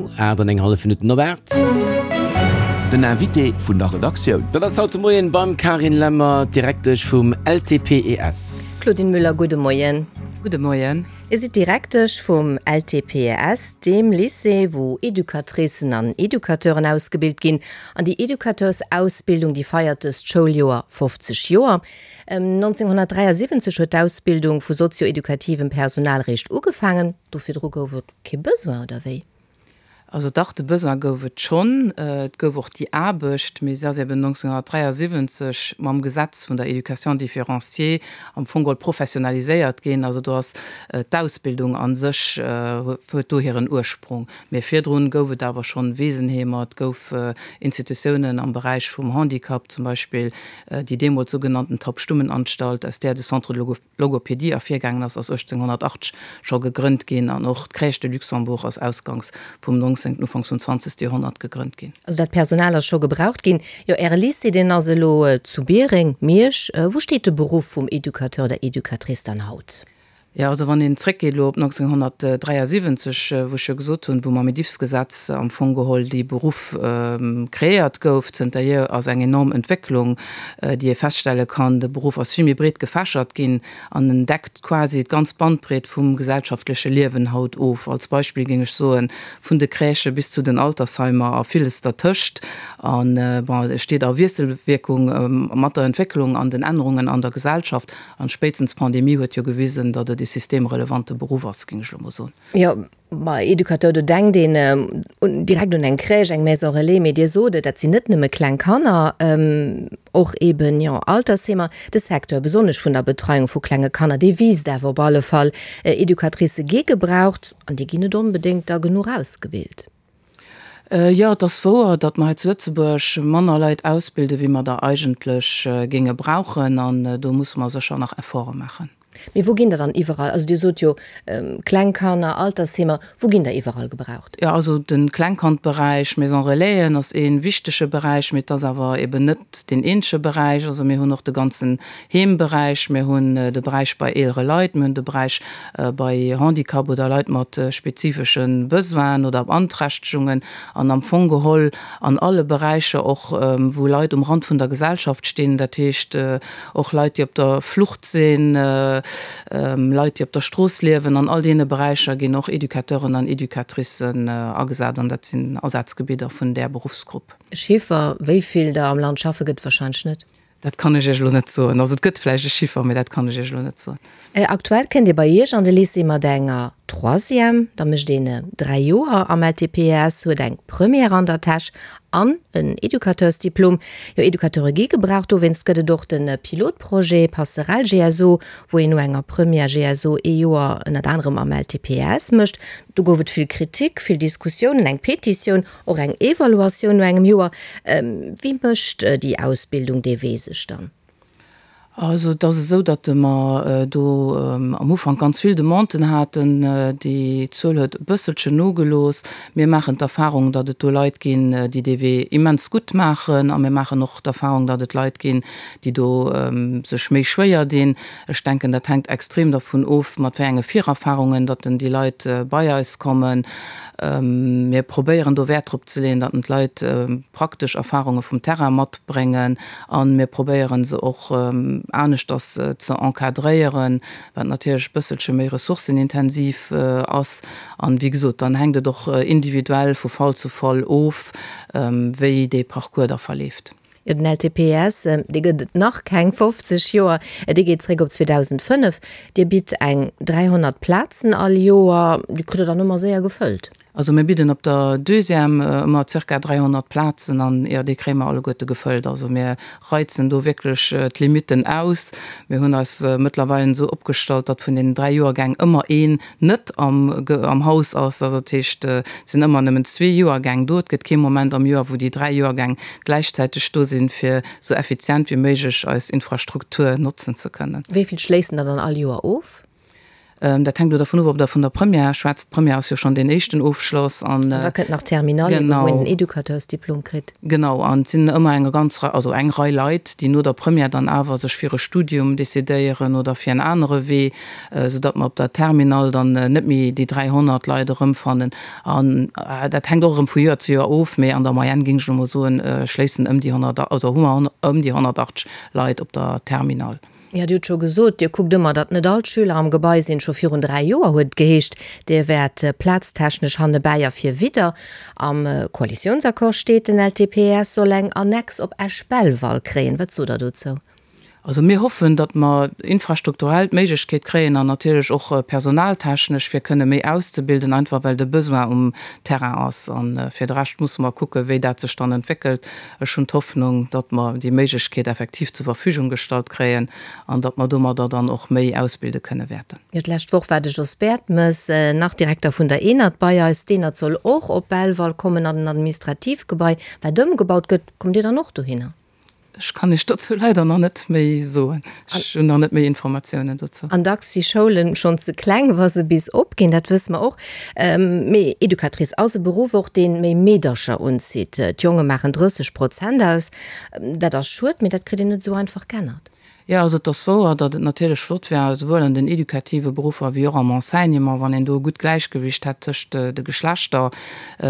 8 an eng hallef Minutten op 8. Den Invité vun der Redaktioun. Dat ass haut de Moien beim Carine Lemmer, d'Direktesch vum LTPES. Claudine Müller, gudde Moien. Gudde Moien. Dir sidd Direktesch vum LTPES, deem Lycée, wou Educatricen an Educateuren ausgebilt ginn. An déi Educateursausbildung, déi feiert dëst Schouljoer 50 Joer. 1973 huet d'Ausbildung vu sozio-edukativem Personal réischt ugefaangen. Do virdru gouf et Kee Besoin, oder wéi? Also dach, de Besoin gouf et schonn. Et gouf och déi Aarbecht, mee se ass eben 1973 mam Gesetz vun der Éducation différenciée am Fong geholl professionaliséiert ginn. Also do ass d'Ausbildung a sech, huet do hiren Ursprung. Mee virdrun gouf et awer schonn Wesenheemer, et gouf Institutiounen am Beräich vum Handicap, zum Beispill déi deemools sougenannten Taubstummenanstalt, aus där de Centre de Logopédie ervirgaangen ass, ass 1880 scho gegrënnt ginn an och d'Crèche de Luxembourg ass ausgangs vum 19., ufanks vum 20. Joerhonnert gegrënnt ginn. Also dat Personal ass scho gebraucht ginn. Jo, Äre Lycée, deen ass elo zu Biereng, Miersch. Wou steet de Beruff vum Educateur oder Educatrice dann haut? Jo, also wann een zréckgeet elo op 1973, wou ech jo gesot hunn, wou mam Edifs-Gesetz am Fong geholl dee Beruff kreéiert gouf, zënterhier ass eng enorm Entwécklung, déi ee feststelle kann. De Beruff ass vill méi breet gefächert ginn an en deckt quasi d'ganz Bandbreet vum gesellschaftleche Liewen haut of. Als Beispill géing ech soen, vun de Crèchë bis zu den Altersheimer a villes dertëscht. A bon, e steet a Wiesselwierkung mat der Entwécklung an den Ännerungen an der Gesellschaft. An spéitstens d'Pandemie huet jo gewisen, datt et e systemrelevante Beruff ass, géing ech elo mol soen. Jo, Ma Educateur, do denkt een direkt un eng Crèche, eng Maison relais, mee Dir sot et, dat sinn net nëmme kleng Kanner, och eben, jo, Altersheemer. De Secteur, besonnesch vun der Betreiung vu klenge Kanner, dee wiisst awer op alle Fall. Educatricë gi gebraucht an déi ginn net onbedéngt da genuch ausgebilt. Jo, et ass wouer, datt mer hei zu Lëtzebuerg manner Leit ausbilden, wéi mer der eigentlech géinge brauchen, an do musse mer sécher nach Efforte maachen. Mee wou ginn der dann iwwerall, also Dir sot jo kleng Kanner, Altersheemer, wou ginn der iwwerall gebraucht? Jo, also de Klengkandberäich, Maison Relaisen ass ee wichtege Beräich, mee et ass awer eben net deen eenzege Beräich. Also mir hunn och de ganzen Heemberäich, mir hunn de Beräich bei eelere Leit, mir hunn de Beräich bei Handicap oder Leit mat spezifesche Besoinen oder Beanträchtegungen an am Fong geholl an alle Beräicher och, wou Leit um Rand vun der Gesellschaft stinn, dat heescht och Leit, déi op der Flucht sinn, Leit, déi op der Strooss liewen. An all deene Beräicher ginn och Educateuren an Educatricen agesat an dat sinn Asazgebidder vun där Beruffsgrupp. E Chiffer, wéi vill der am Land schaffe gëtt et warscheinlech net. Dat kann ech Iech elo net soen. Also et gëtt vläicht e Chiffer, mee dat kann ech Iech elo net soen. Aktuell kënnt Dir bei Iech an de Lycée mat enger Troisième, da mécht een 3 Joer am LTPES, huet eng Première an der Täsch an en Educateursdiplom. Jo, Educateure gi gebraucht, dowéinst gëtt et och de Pilotprojet Passerelle GSO, wou een no enger Première GSO ee Joer ënnert anerem am LTPES mécht. Do gouf et vill Kritik, vill Diskussiounen, eng Petitioun, och eng Evaluatioun no engem Joer. Wéi mécht déi Ausbildung dee Wee sech dann? Also et ass esou, datt mer do am Ufank ganz vill Demanden haten. Déi Zuel huet e bësselchen nogelooss. Mir maachen d'Erfahrung, datt et do Leit ginn, déi dee Wee immens gutt maachen. A mir maachen och d'Erfahrung, datt et Leit ginn, déi do sech méi schwéier dinn. Ech denken, dat hänkt extrem dervun of, mat wéi enge Virerfahrungen datt denn déi Leit bei eis kommen. Mir probéieren do Wäert drop ze leeën, datt d'Leit praktesch Erfahrunge vum Terrain matbréngen a mir probéieren se och aneschters ze encadréieren, wat natierlech e bësselche méi ressourcenintensiv ass. An, wéi gesot, dann hänkt et och individuell vu Fall zu Fall of, wéi dee Parcours da verleeft. Jo, den LTPS, dee gëtt et nach keng 50 Joer, dee geet zréck op 2005. Dir bitt eng 300 Plazen all Joer, déi kritt Der dann ëmmer séier gefëllt? Also mir bidden op der Deuxième ëmmer zirka 300 Plazen an, jo, déi kréie mer alleguerte gefëllt. Also mir reizen do wierklech d'Limitten aus. Mir hunn eis mëttlerweilen esou opgestallt, datt vun deenen dräi Joergäng ëmmer een net am Haus ass. Also dat heescht, et sinn ëmmer nëmmen zwee Joergäng do. Et gëtt kee Moment am Joer, wou déi dräi Joergäng gläichzäiteg do sinn, fir esou effizient wéi méiglech eis Infrastruktur notzen ze kënnen. Wéi vill schléissen der dann all Joer of? Dat hänkt elo dervun of, ob Der vun der Première schwätzt. D'Première ass jo schonn deen éischten Ofschloss. An da kënnt nach d'Terminale, eben, wou een den Educateursdiplom kritt. Genau. An et sinn ëmmer eng ganz Rei, also eng Rei Leit, déi no der Première dann awer sech fir e Studium decidéieren oder fir en anere Wee, soudatt mer op der Terminale dann net méi déi 300 Leit erëmfannen. An dat hänkt och erëm vu Joer zu Joer of, mee an der Moyenne, géing ech elo mol soen, schléissen ëm déi 100, also hu mer ëm déi 180 Leit op der Terminale. Jo, Dir hutt scho gesot, Dir kuckt ëmmer, datt net all d'Schüler am Gebai sinn. Scho virun 3 Joer huet et geheescht, Dir wäert plaztechnesch hannebäi a vir widder. Am Koalitiounsaccord steet, den LTPS soll eng Annex op Esch-Belval kréien. Wat sot Der dozou? Also mir hoffen, datt mer infrastrukturell d'Méiglechkeet kréien an natierlech och personaltechnesch, fir kënne méi auszebilden, einfach well de Besoin um Terrain ass. A fir de Rescht musse mer kucken, wéi dat sech dann entwéckelt. Ech hunn d'Hoffnung, datt mer déi Méiglechkeet effektiv zur Verfügung gestallt kréien an datt mer domadder dann och méi ausbilde kënne wäerten. Jo, d'lescht Woch war de Jos Bertemes, nach Direkter vun der ENAD, bei eis. D'ENAD soll och op Belval kommen an den Administrativgebai, wat ëmgebaut gëtt. Kommt Dir dann och dohinner? Ech kann Iech dozou leider nach net méi soen. Ech hunn nach net méi Informatiounen dozou. An dacks si Schoulen schonn ze kleng, wa se bis opginn, dat wësse mer och. Mee Educatrice ass e Beruff och, dee méi Meedercher unzitt. D'Jonge maachen 30 Prozent aus. Dat ass schued, mee dat kritt een net esou einfach g'ännert. Jo, also et ass wouer, datt et natierlech flott wär, esouwuel an den educative Beruffer wéi och am Enseignement, wann een do e gutt Gläichgewicht hätt tëscht de Geschlechter.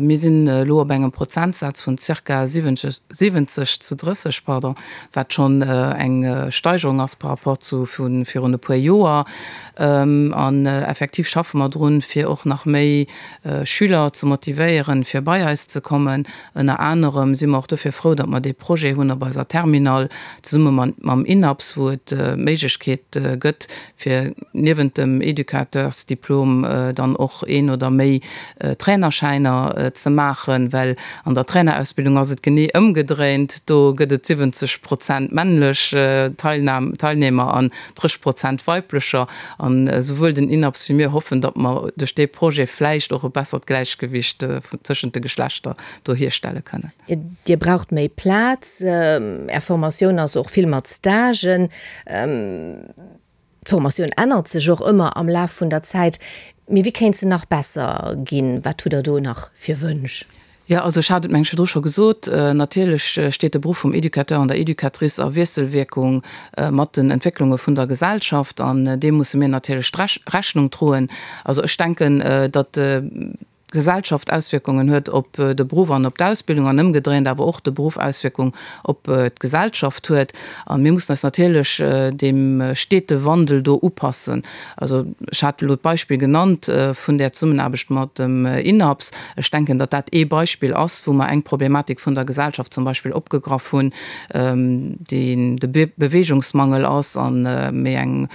Mir sinn elo op engem Prozentsaz vun zirka 70 zu 30, pardon, wat schonn eng Steigerung ass par rapport zu vu virun e puer Joer. An effektiv schaffe mer drun, fir och nach méi Schüler ze motivéieren, fir bei eis ze kommen. Ënner anerem si mer och dofir frou, datt mer dee Projet hunn op eiser Terminal zesumme mam INAPS, wou et d'Méiglechkeet gëtt, fir niewent dem Educateursdiplom dann och een oder méi Trainerschäiner ze maachen, well an der Trainerausbildung ass et genee ëmgedréint, do gëtt et 70 Prozent männlech Teilnehmer an 30 Prozent weiblecher. An esouwuel den INAPS wéi mir hoffen, datt mer duerch dee Projet vläicht och e bessert Gläichgewicht tëschent de Geschlechter do hierstelle kënnen. Dir braucht méi Plaz. Är Formatioun ass och vill mat Stagen. D'Formatioun ännert sech och ëmmer am Laf vun der Zäit. Mee wéi kéint se nach besser ginn? Wat hutt Der do nach fir Wënsch? Jo, also ech hat et mengen ech virdru scho gesot, natierlech steet de Beruff vum Educateur an der Educatrice a Wiesselwierkung mat den Entwécklunge vun der Gesellschaft an deem musse mir natierlech Rechnung droen. Also ech denken, datt d'Gesellschaft Auswierkungen huet op de Beruff an op d'Ausbildung an ëmgedréint awer och de Beruff Auswierkung op d'Gesellschaft huet. A mir mussen eis natierlech deem stete Wandel do upassen. Also ech hat elo d'Beispill genannt vun där Zesummenaarbecht mat dem INAPS. Ech denken, datt dat ee Beispill ass, wou mer eng Problematik vun der Gesellschaft zum Beispill opgegraff hunn, déi de Beweegungsmangel ass a méi eng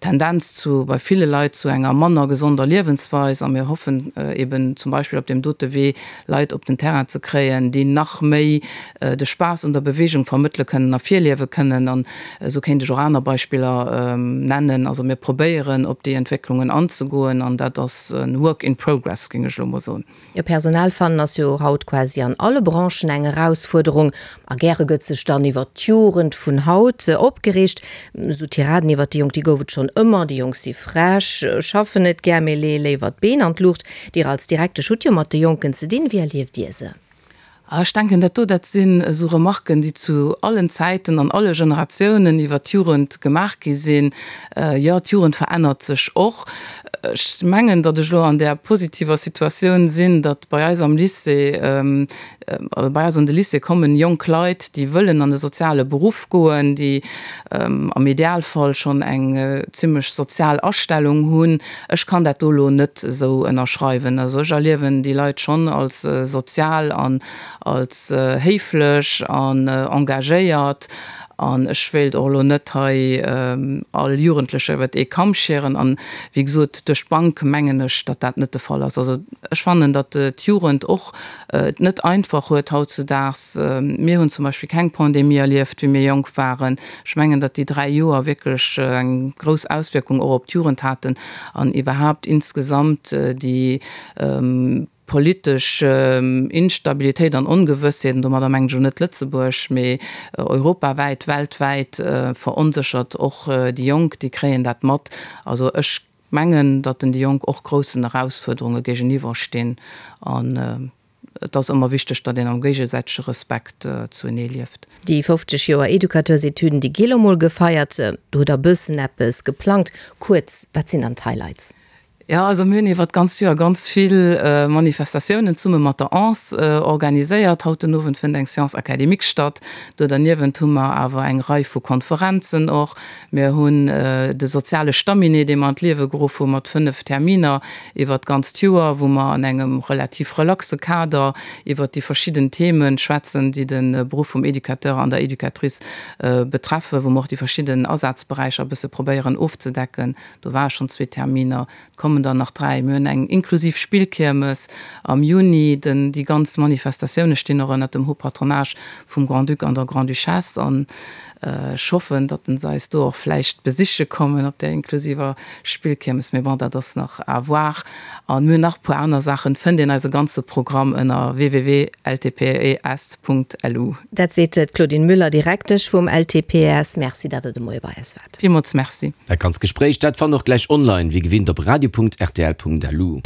Tendenz zu bei ville Leit zu enger manner gesonder Liewensweis. A mir hoffen eben zum Beispill op deem dote Wee Leit op den Terrain ze kréien, déi nach méi de Spaass un der Beweegung vermëttele kënnen a virliewe kënnen. An esou kéint ech och aner Beispiller nennen. Also mir probéieren, op déi Entwécklungen anzegoen, an dat ass e work in progress, géing ech elo mol soen. Jo, Personal fannen ass jo haut quasi an alle Branchen eng Erausfuerderung. A gäre gëtt sech dann iwwert d'Jugend vun haut opgereegt. Esou Tiraden iwwert déi Jonk, déi gouf et schonn ëmmer, déi Jonk si frech, schaffen net gär, mee leeë léiwer d'Been an d'Luucht. Dir als Direktesch hutt jo mat de Jonken ze dinn. Wéi erlieft Dir se? Ech denken, dat do, dat sinn esou Remarken, déi zu allen Zäiten an alle Generatiounen iwwert d'Jugend gemaach gi sinn. Jo, d'Jugend verännert sech och. Ech mengen, datt ech elo an där positiver Situatioun sinn, datt bei eis am Lycée, bei eis an de Lycée kommen jonk Leit, déi wëllen an e soziale Beruff goen, déi am Idealfall schonn eng zimlech sozial Astellung hunn. Ech kann dat do elo net esou ënnerschreiwen. Also ech erliewen déi Leit schonn als sozial an als héiflech an engagéiert. An ech wéilt och elo net hei all Jugendlecher iwwert ee Kamm schieren. An, wéi gesot, duerch d'Bank mengen ech, datt dat net de Fall ass. Also ech fannen, datt d'Jugend och et net einfach huet hautzudaags. Mir hunn zum Beispill keng Pandemie erlieft, wéi mir jonk waren. Ech mengen, datt déi 3 Joer wierklech eng grouss Auswierkung och op d'Jugend haten an iwwerhaapt insgesamt déi politesch Instabilitéit an Ongewëssheet, an domadder mengen ech elo net Lëtzebuerg, mee europawäit, weltwäit, veronséchert och déi Jonk, déi kréien dat mat. Also ech. mengen, datt den déi Jonk och groussen Erausfuerderunge géigeniwwer stinn an et ass ëmmer wichteg, datt een am géigesäitege Respekt zuenee lieft. Déi 50 Joer Educateursetüden, déi gi lo mol gefeiert. Do hutt der bëssen eppes geplangt. Kuerz, wat sinn dann d'Highlights? Jo, also mir hunn iwwert d'ganzt Joer ganz vill Manifestatiounen zesumme mat der Anse organiséiert. Haut den Owend fënnt eng Séance académique statt. Do derniewent hu mer awer eng Rei vu Konferenzen och. Mir hunn de soziale Stamminet, dee mer an d'Liewe geruff hu mat 5 Terminer iwwert d'ganzt Joer, wou mer an engem relativ relaxe Kader iwwert déi verschidden Themen schwätzen, déi de Beruff vum Educateur an der Educatrice betreffen, wou mer och déi verschidden Asazberäicher e bësse probéieren ofzedecken. Do ware schonn zwee Terminer, et kommen der nach dräi. Mir hunn eng inklusiv Spillkiermes am Juni. Den, déi ganz Manifestatioune stinn och ënnert dem Haut Patronage vum Grand-Duc an der Grand-Duchesse. An ech hoffen, datt se eis do och vläicht besiche kommen op där inklusiver Spillkiermes. Mee bon, dat ass nach à voir. An mir hunn nach e puer aner Saachen. Et fënnt een eise ganze Programm ënner www.ltpes.lu. Dat seet d'Claudine Müller, Direktesch vum LTPES. Merci, datt Der de Moie bei eis waart. Villmools Merci. Dat ganzt Gespréich, dat fannt och gläich online, wéi gewinnt op radio.rtl.lu.